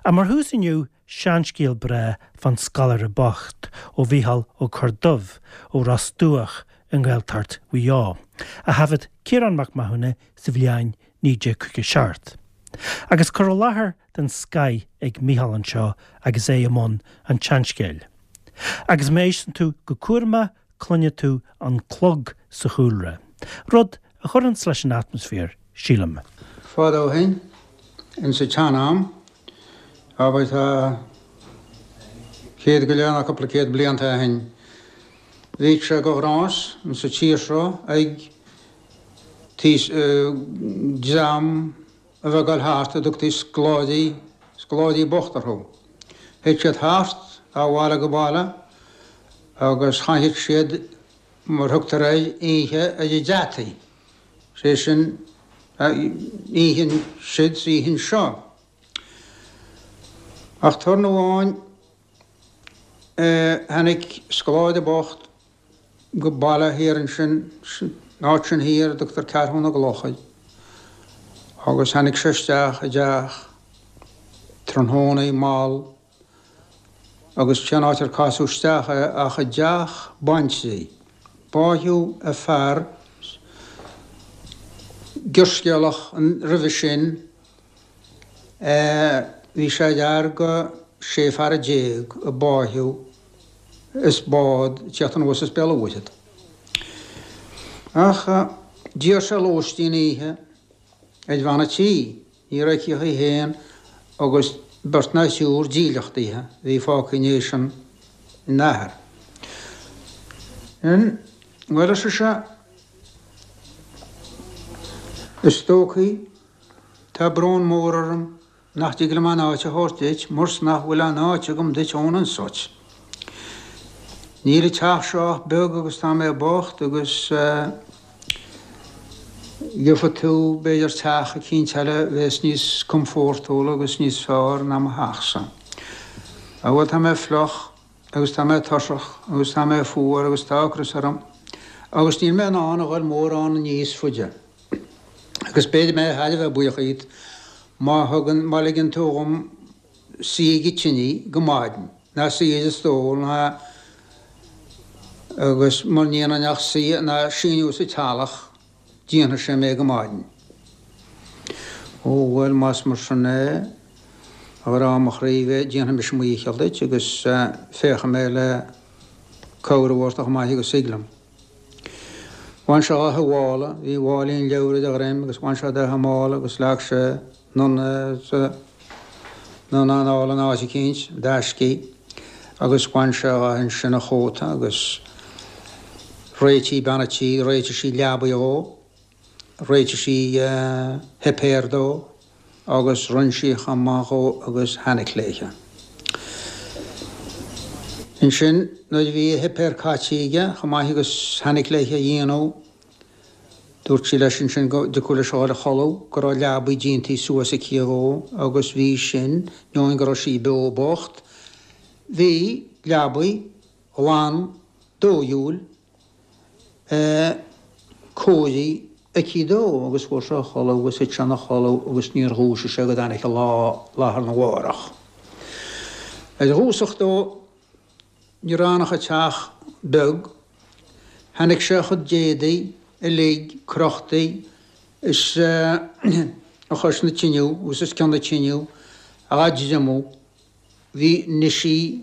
Ach mar thús inniu, seanscéal breá fán scoláire bocht ó Mhícheál Ó Corrdubh ó Ros Dumhach i nGaeltacht Mhaigh Eo, a thaifead Ciarán Mac Mathúna sa bhliain 1957. Agus cur i láthair den scoith ag Mícheál anseo agus é i mbun an tseanscéil. Agus má éisteann tú go cúramach cluinfidh tú an clog sa chúlra, rud a chuireanns leis an atmaisféar, sílim. Fadó ó shin, ins an tsean-am, abair tá céad go leith nó cúpla céad blianta ó shin, bhíodh sé de ghnás ins an tír seo ag dream a bheith ag dul thart a dtugtaí scoláirí, scoláirí bocht orthu. Théadh siad thart ó bhaile go baile agus chaitheadh siad, mar thugtar air, oíche ar a dtreataí, sé sin, oíche ansiúd 's oíche anseo. Ach turn amháin tháinig scoláire bocht go baile thiar ansin, san áit sin thiar a dtugtar Ceathrú na gCloch air, agus tháinig sé isteach i dteach tráthnóna mall agus cén áit ar casadh isteach é ach i dteach baintrí. Báitheadh a fear gearrscéalach roimhe sin, bhí sé ar fhear de 16 fear a báitheadh is bád ag tíocht anuas as Béal an Mhuirthead. Ach d'iarr sé lóistín oíche ar bhean a' tí. Ní raibh aici ach í féin agus beirt ná triúr dílleachtaithe a bhí fágtha i ndiaidh an athar. Bhuel, ar sise, is dóichí tá brón mór orm nach dtig liom aon áit a thabhairt duit mar's nach bhfuil aon áit agam duit ionann 's uait. Níl an teach seo ach beag agus tá mé bocht agus gheobhaidh tú b'fhéidir teach eicínt eile a bheas níos comfórtúla agus níos fearr ná mo theachsa. Á bhuel tá mé fliuch agus tá mé tuirseach agus tá mé fuar agus tá ocras orm agus níl mé in ann a dhul mórán níos faide. Agus b'fhéidir mé thar a bheith buíoch dhíot má thugann, má ligeann tú dhom suí ag an tine go maidin, ná suí ar an stól ná agus mura ndéanfainn ach suí ná síniú sa teallach, déanfaidh sé mé go maidin. Ó bhuel, más mar sin é, a ghrá mo chroí, déanfaidh mise mo dhícheall duit agus féachfaidh mé le cabhair a thabhairt chomh maith agus thig liom. Bhain sé dhá mhála, bhí máilín leabhar ar a dhroim agus bhain sé de mála agus leag sé anonn é anonn anall in áit eicínt, d'aiscí, agus bhain sé dhe ansin a chóta agus réitigh bean a' tí, réitigh sí leabaidh dhó. Réitigh sí a shuipéar dó agus rinn sí chomh maith dhó agus thainic léithe. Ansin nuair a bhí a shuipéar caite aige chomh maith agus thainic léithe a dhéanamh, dúirt sí leis ansin go dtiocfadh leis a dhul a chodladh, go raibh leabaidh déantaí suas aici dhó agus bhí sin, ainneoin go raibh sí beo bocht, bhí leabaidh ghlan dóighiúil cóirithe aici dó agus fuair sé a chodladh agus thit sé ina chodladh agus níor dhúisigh sé go dtáinig an lá lá arna mhárach. Ar dhúiseacht dó ní raibh ann ach an teach beag. Tháinig sé a chuid d'éadaí uilig crochtaí is a chois na tineadh agus os cionn na tineadh á dtriomú. Bhí nigh sí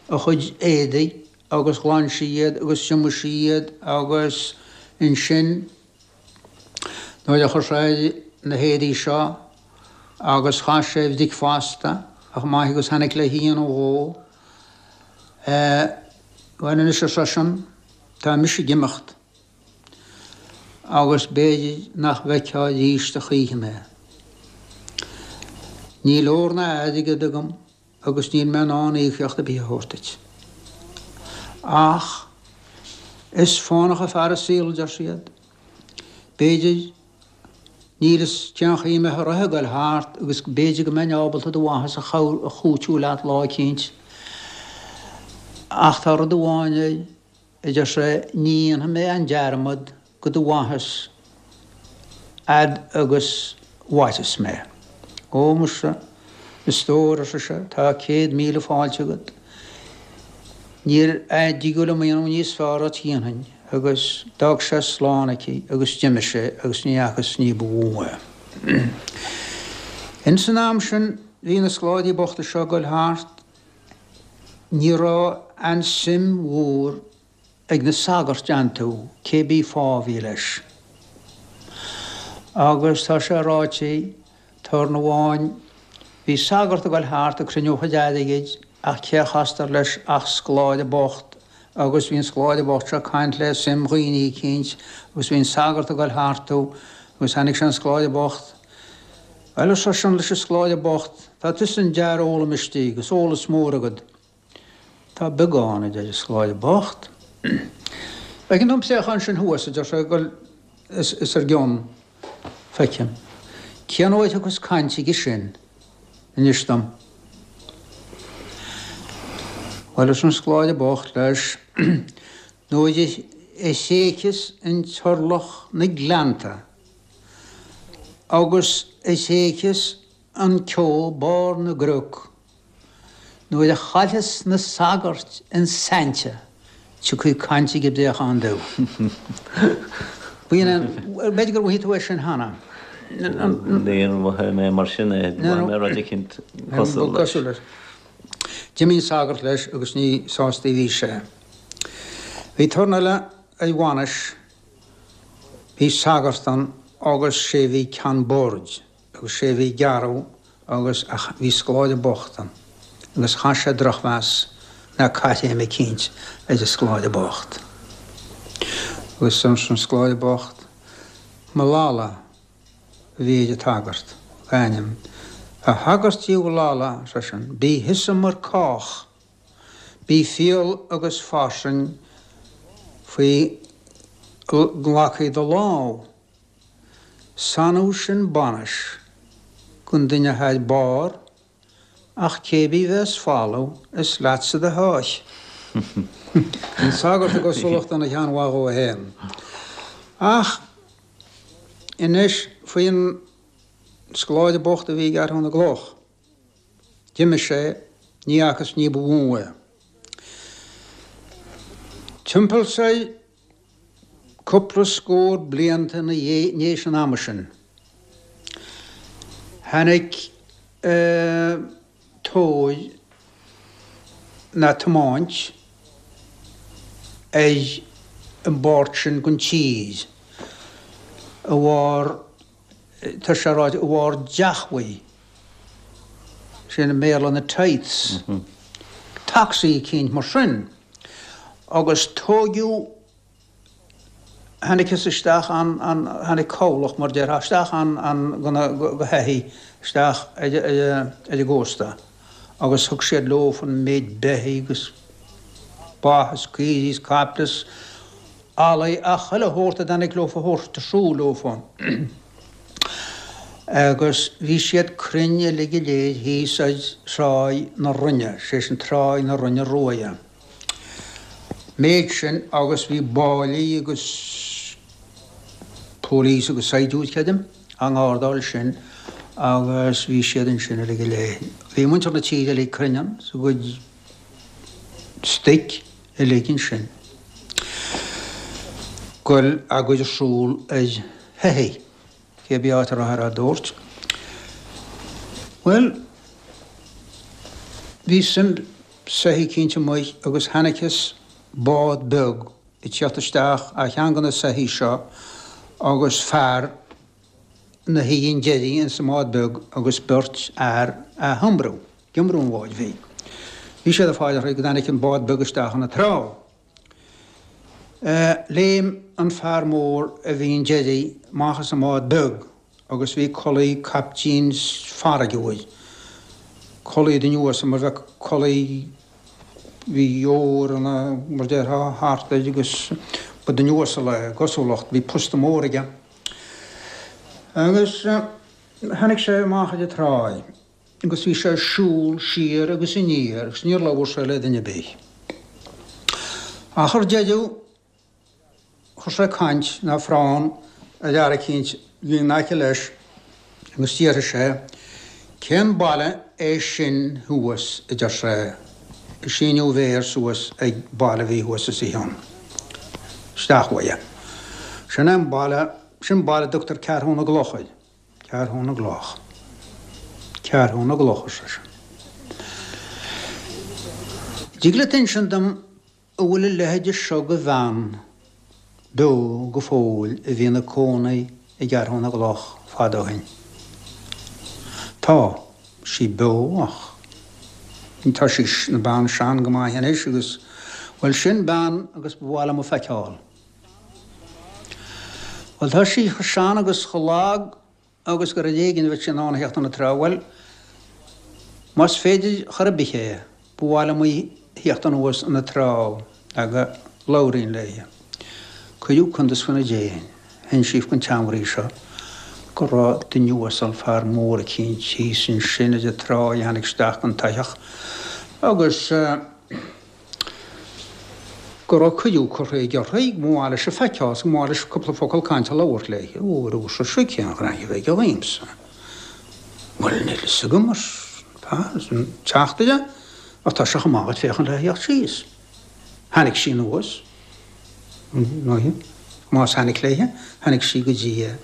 a chuid éadaigh agus ghlan sí iad agus thriomaigh sí iad agus ansin nuair a chuir sé air na héadaí seo agus chaith sé a bhricfeasta chomh maith agus tháinig le dhéanamh dhó, bhuel anois ar seisean, tá mise ag imeacht agus b'fhéidir nach bhfeicfeá arís a choíche mé. Níl ór ná airgead agam agus níl mé in ann íocaíocht ar bith a thabhairt duit. Ach is fánach an fear an saol, a deir siad. B'fhéidir, níl fhios cén chaoi a mbeadh an roth ag goil thart agus b'fhéidir go mbeinn ábalta do mhaitheas a chúiteamh leat lá eicínt. Ach tá rud amháin air, a deir sé, ní dhéanfaidh mé aon dearmad go do mhaitheas fhad agus mhairfeas mé. Ó, muise. A stór, ar sise, tá 100,000 fáilte agat. Níor dtigeadh liom a dhéanamh níos fearr dhuit dhéanfainn, agus d'fhág sé slán aici agus d'imigh sé agus ní fhacthas ní ba mhó é. Ins an am sin bhí na scoláirí bochta seo ag goil thart, ní raibh aon suim mhór ag na sagairt iontu, cé bith fáth a bhí leis. Agus tá sé ráite, turn amháin, bhí sagart ag goil thart ag cruinniú a chuid airgid ach cé a chastar leis ach scoláire bocht agus bhí an scoláire bocht seo ag caint le suim dhaoine eicínt agus bhí an sagart ag goil thartu agus tháinig sé ar an scoláire bocht. Bhuel, ar seisean leis an scoláire bocht, tá tusa an-fhear foghlama istigh agus eolas mór agat. Tá beagán, a deir an scoláire bocht. Feiceann tú an préachán sin thuas, a deir sé, ag goil os ár gcionn. Feicim. Cén uair a thiocfas caint aige sin? Inis dom. Bhuel, arsa an scoláire bocht leis, nuair a thréigfeas an t-orlach na gleannta agus a thréigfeas an ceo barr na gcnoc, Nuair a chaillfeas na sagairt an saint tiocfaidh caint ag an bpréachán dubh. B'fhéidir gur mhothaigh tú é sin cheana. Níor mhothaigh mé mar sin é, mhothaigh mé rud eicínt cosúil leis. D'imigh an sagart leis agus ní sásta a bhí sé. Bhí turn eile ar bhainis, bhí sagart ann agus sé bhí ceann boird. agus sé a bhí ag gearradh agus ach bhí scoláire bocht ann agus chaith sé drochmheas ná caithréim eicínt ar an scoláire bocht. Agus arsa an scoláire bocht, Mullally a bhí ar an tsagart, a ainm. A shagairt Uí Mhullally, ar seisean, bí thusa mar cách, bí fial agus fairsing faoi nglacfaidh do lámh. Sannadh sin bainis gon duine athá ar barr ach cé bith bheas folamh is leatsa do sháith. An sagart i gcosúlacht ina cheann mhaith dhó fhéin. Ach anois faoin scoláire bocht a bhí ag gearradh na gcloch. D'imigh sé, ní fhacthas ní ba mhó é. Timpeall soir Cúpla scór blianta ina dhiaidh an ama sin, tháinig tóir ná tiomáint ar an bpáirt sin den tír a bharr, tá sé ráite, a bharr deachmhaí, sin i mBéarla na tithes, tacsaí eicínt mar sin. Agus tóigeadh, tháinigtheas isteach an, an, tháinig cabhlach, mar déarfá, isteach an, an, go na, go soithí, isteach ar, ar, ar an gcósta agus thug siad leofa an méid beithígh agus ba is caoirigh is caiple is eallaigh ach chuile shórt a dtáinig leofa a thabhairt ar siúl leofa. Agus bhí siad cruinn uilig go léir thíos ar Thráigh na Rinne, sé sin Tráigh na Rinne Ruaidhe. Méid sin agus bhí báillí agus police agus saighdiúir, creidim, á ngardáil sin agus bhí siad ansin uilig go léir. Bhí muintir na tíre uilig cruinn ann is a gcuid stoic uilig ansin. Goil á gcur ar siúl ar shoithí. Cé bith áit a rabhthar á dtabhairt. Bhuel, bhí suim soithí eicínt amuigh agus chonacthas bád beag ag tíocht isteach ar cheann de na soithí seo agus fear 'na shuí an deiridh ins an mbád beag agus beirt fhear á hiomrú, ag iomrú an bháid bhig. Bhí siad ag fáil uirthi go dtáinig an bád beag isteach ina treo. Léim an fear mór a bhí an deiridh amach as an mbád beag agus bhí culaith caiptín farraige uair, culaith duine uasal mar bheadh culaith, bhí ór ina, mar déarfá, thart air agus ba duine uasal é, i gcosúlacht, bhí posta mór aige. Agus tháinig sé amach ar an tráigh. agus bhí sé ag siúl siar agus aniar agus níor labhair sé le duine ar bith. Ach ar deireadh chuir sé caint ná frán ar fhear eicínt a bhí in aice leis agus d'fhiafraigh sé. Cén baile é sin thuas, a deir sé, ag síniú a mhéir suas ag baile a bhí thuas os a chionn. Isteach uaidh. Sin é an baile, sin baile a dtugtar Ceathrú na gCloch air. Ceathrú na gCloch. Ceathrú na gCloch, ar seisean. Dtig leat insint dom an bhfuil a leithéide seo de bhean beo go fóill a bhí ina cónaí i gCeathrú na gCloch fada ó shin? Tá sí beo ach tá sí ina bean sean go maith anois agus, bhuel, sin bean agus ba mhaith liom a feiceáil. Bhuel, tá sí chomh sean agus chomh lag agus gur ar éigin a bheadh sí in ann a theacht an trá. Bhuel, más féidir chor ar bith é, ba mhaith liom í a theacht anuas an trá le go labhróinn léi. Cuireadh cuntas faoina déin. Insíodh don tseanmhnaoi seo go raibh duine uasal, fear mór eicínt thíos ansin ar an trá a tháinig isteach don tsoitheach agus. go raibh cuireadh curtha aige uirthi, go mba mhaith leis í a feiceáil is go mba mhaith leis cúpla focal cainte a labhairt léi. Ó, ar sise, cén ghnaithe a bheidh aige dhíomsa? Bhuel, níl fhios agam, arsa an teachtaire, ach tá sé chomh maith dhuit féachaint le theacht síos. Tháinig sí anuas, más tháinig léithe, tháinig sí go dtí é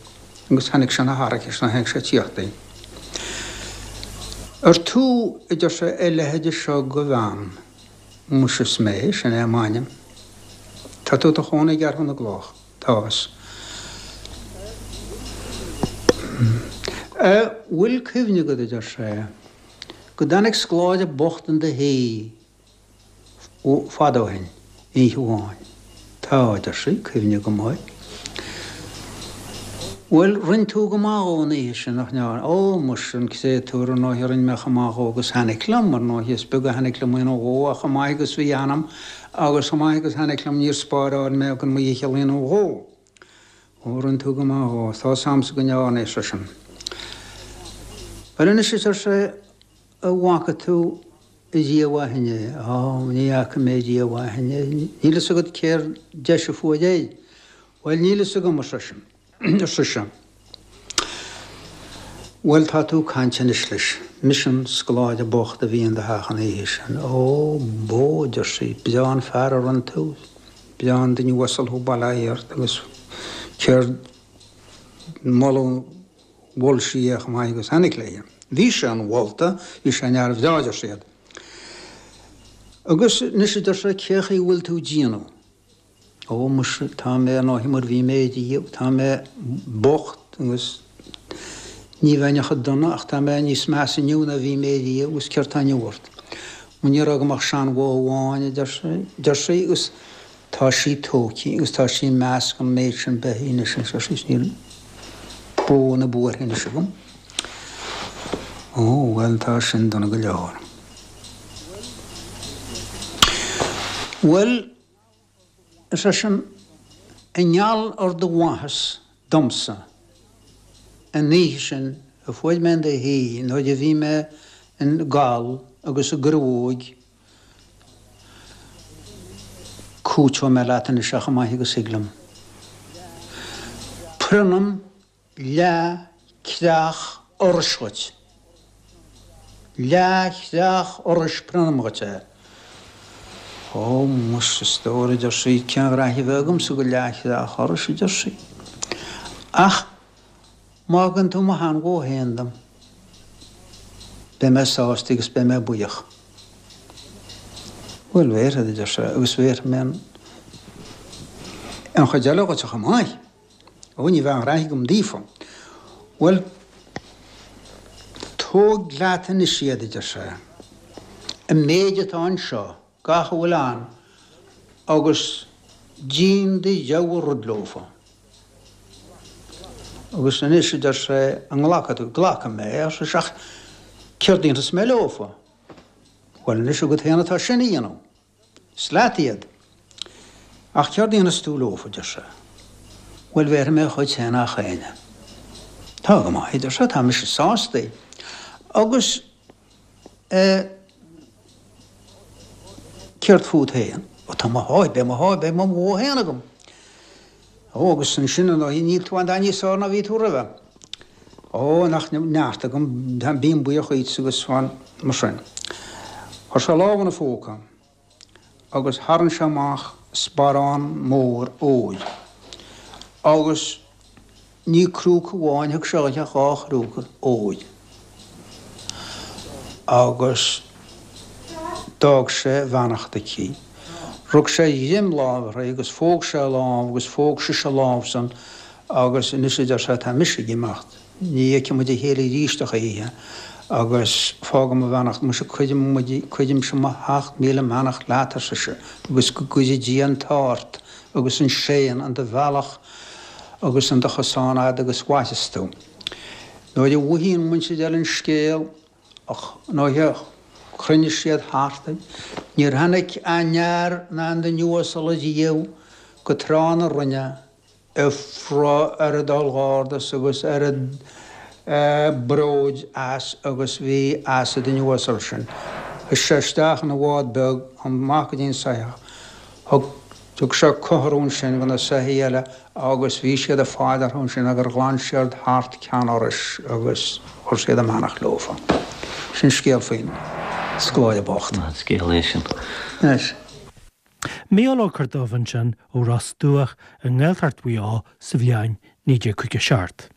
agus tháinig sé ina tharrac is tháinig sé tíocht di. Ar tú, a deir sé, a leithide seo de bhean? Muise is mé, sin é m'ainm. Tá tú i do chónaí i gCeathrú na gCloch. Tá. A' bhfuil cuimhne agat, a deir sé, go dtáinig scoláire bocht in do thigh fada ó shin, oíche amháin. Tá, a deir sí, cuimhne agam air. Bhuel, rinn tú go maith dhó an oíche sin, nach ndearna? Ó, muise, an créatúr, ar ndóighe, rinn mé chomh maith dhó agus tháinig liom, ar ndóighe, is beag a tháinig liom a dhéanamh dhó ach chomh maith agus bhí ionam agus chomh maith agus tháinig liom níor spáráil mé gan mo dhícheall a dhéanamh dhó. Ó, rinn tú go maith dhó, tá 'fhios a'msa go ndearna, ar seisean. Bhuel anois, a deir sé, an bhfaca tú riamh ó shin é? Ó, ní fhaca mé riamh ó shin é. Níl fhios agat céard deis a fuair air? Bhuel, níl fhios agam, ar seisean, ar sise. Bhuel, tá tú ag caint anois leis. Mise an scoláire bocht a bhí in do theach an oíche sin. Ó, bó, a deir sí, breá an fear a rinn tú. Breá an duine uasal thú, bail ó Dhia ort, agus céard moladh mhol sí é chomh maith agus tháinig léi. Bhí sé an-mholta, bhí sé ina fhear bhreá, a deir siad. Agus anois, a deir sé, cé chaoi a bhfuil tú ag déanamh? Ó, muise, tá mé ar ndóigh mar bhí mé riamh, tá mé bocht agus ní bheinn chomh dona ach tá mé níos measa inniu ná bhí mé riamh agus céard tá inniu ort? Ó, ní raibh agam ach seanbhó amháin, a deir sí, agus tá sí tógtha agus tá sí i measc an méid sin beithígh anois, a deir sí, níl bó na buartha anois agam. Ó, bhuel, tá sin dona go leor. Bhuel, Ar seisean, i ngeall ar do mhaitheas domsa an oíche sin a fuair mé in do thigh nuair a bhí mé im ghal agus i gcruóig, cúiteoidh mé leat anois é chomh maith agus thig liom. Prionnaim leath creach urrais dhuit. Leath chreach urrais prionnaim dhuit é. Ó, muise, a stór, a deir sí, cén ghnaithe a bheadh agamsa go leath chreach urrais, a deir sí. Ach má thugann tú mo sheanbhó féin dom, beidh mé sásta agus beidh mé buíoch. Bhuel, bhéarfad, a deir sé, agus bhéarfaidh mé an chuid eile dhuit chomh maith. Ó, ní bheadh aon ghnaithe agam daofa. Bhuel, tóg leat anois iad, a deir sé, an méid atá anseo, gach a bhfuil ann, agus dein do rogha rud leofa. Agus anois, a deir sé, an nglacfaidh tú? Glacfaidh mé, ar sise, ach céard a dhéanfas mé leofa? Bhuel, anois agat féin atá sin a dhéanamh. Is leat iad. Ach céard a dhéanfas tú leofa, a deir sé. Bhuel, bhéarfaidh mé dhuit féin gach éinne. Tá go maith, a deir sé, tá mise sásta. Agus, eh, céard fút féin? Ó, tá mo sháith, beidh mo sháith, beidh mo bhó féin agam. Ó, agus ansin, ar ndóigh, níl tú aon dath níos fearr ná bhí tú roimhe. Ó, nach neart agam, bím buíoch dhuitse agus fan mar sin. Chuir sé a lámh ina phóca agus tharraing sé amach sparán mór óir agus ní crúca amháin, thug sé dhuithe ach dhá chrúca óir agus d'fhág sé a bheannacht aici. Rug sé a dhroim láimhe uirthi agus phóg sé a lámh agus phóg sise a lámh-san Agus anois, a deir sé, tá mise ag imeacht. Ní fheicfidh muid a chéile arís a choíche, agus fágaim mo bheannacht. Muise, cuirim, cuirimse mo sheacht míle mbeannacht leat, ar sise, agus go gcuire Dia an t-ádh ort agus an séan in do bhealach agus in do chosán fhad agus mhairfeas tú. Nuair a mhothaigh an mhuintir eile an scéal, nuair a chruinnigh siad thart, níor tháinig aon fhear ná aon duine uasal ariamh go Trá na Rinne, a raibh oiread urghardas agus oiread bróid as agus bhí as an duine uasal sin. Chuaigh sé isteach ina bhád beag amach go dtí an soitheach. Thug thug sé cothrom ansin do na soithí eile agus bhí siad ag fáil orthu ansin gur ghlan siad thart Ceann Iorrais agus chuir siad a mbeannacht leofa. Sin scéal faoin scoláire bocht. Maith an scéal é sin. Anois. Mícheál Ó Corrdubh ansin ó Ros Dumhach i nGaeltacht Mhaigh Eo sa bhliain 1957.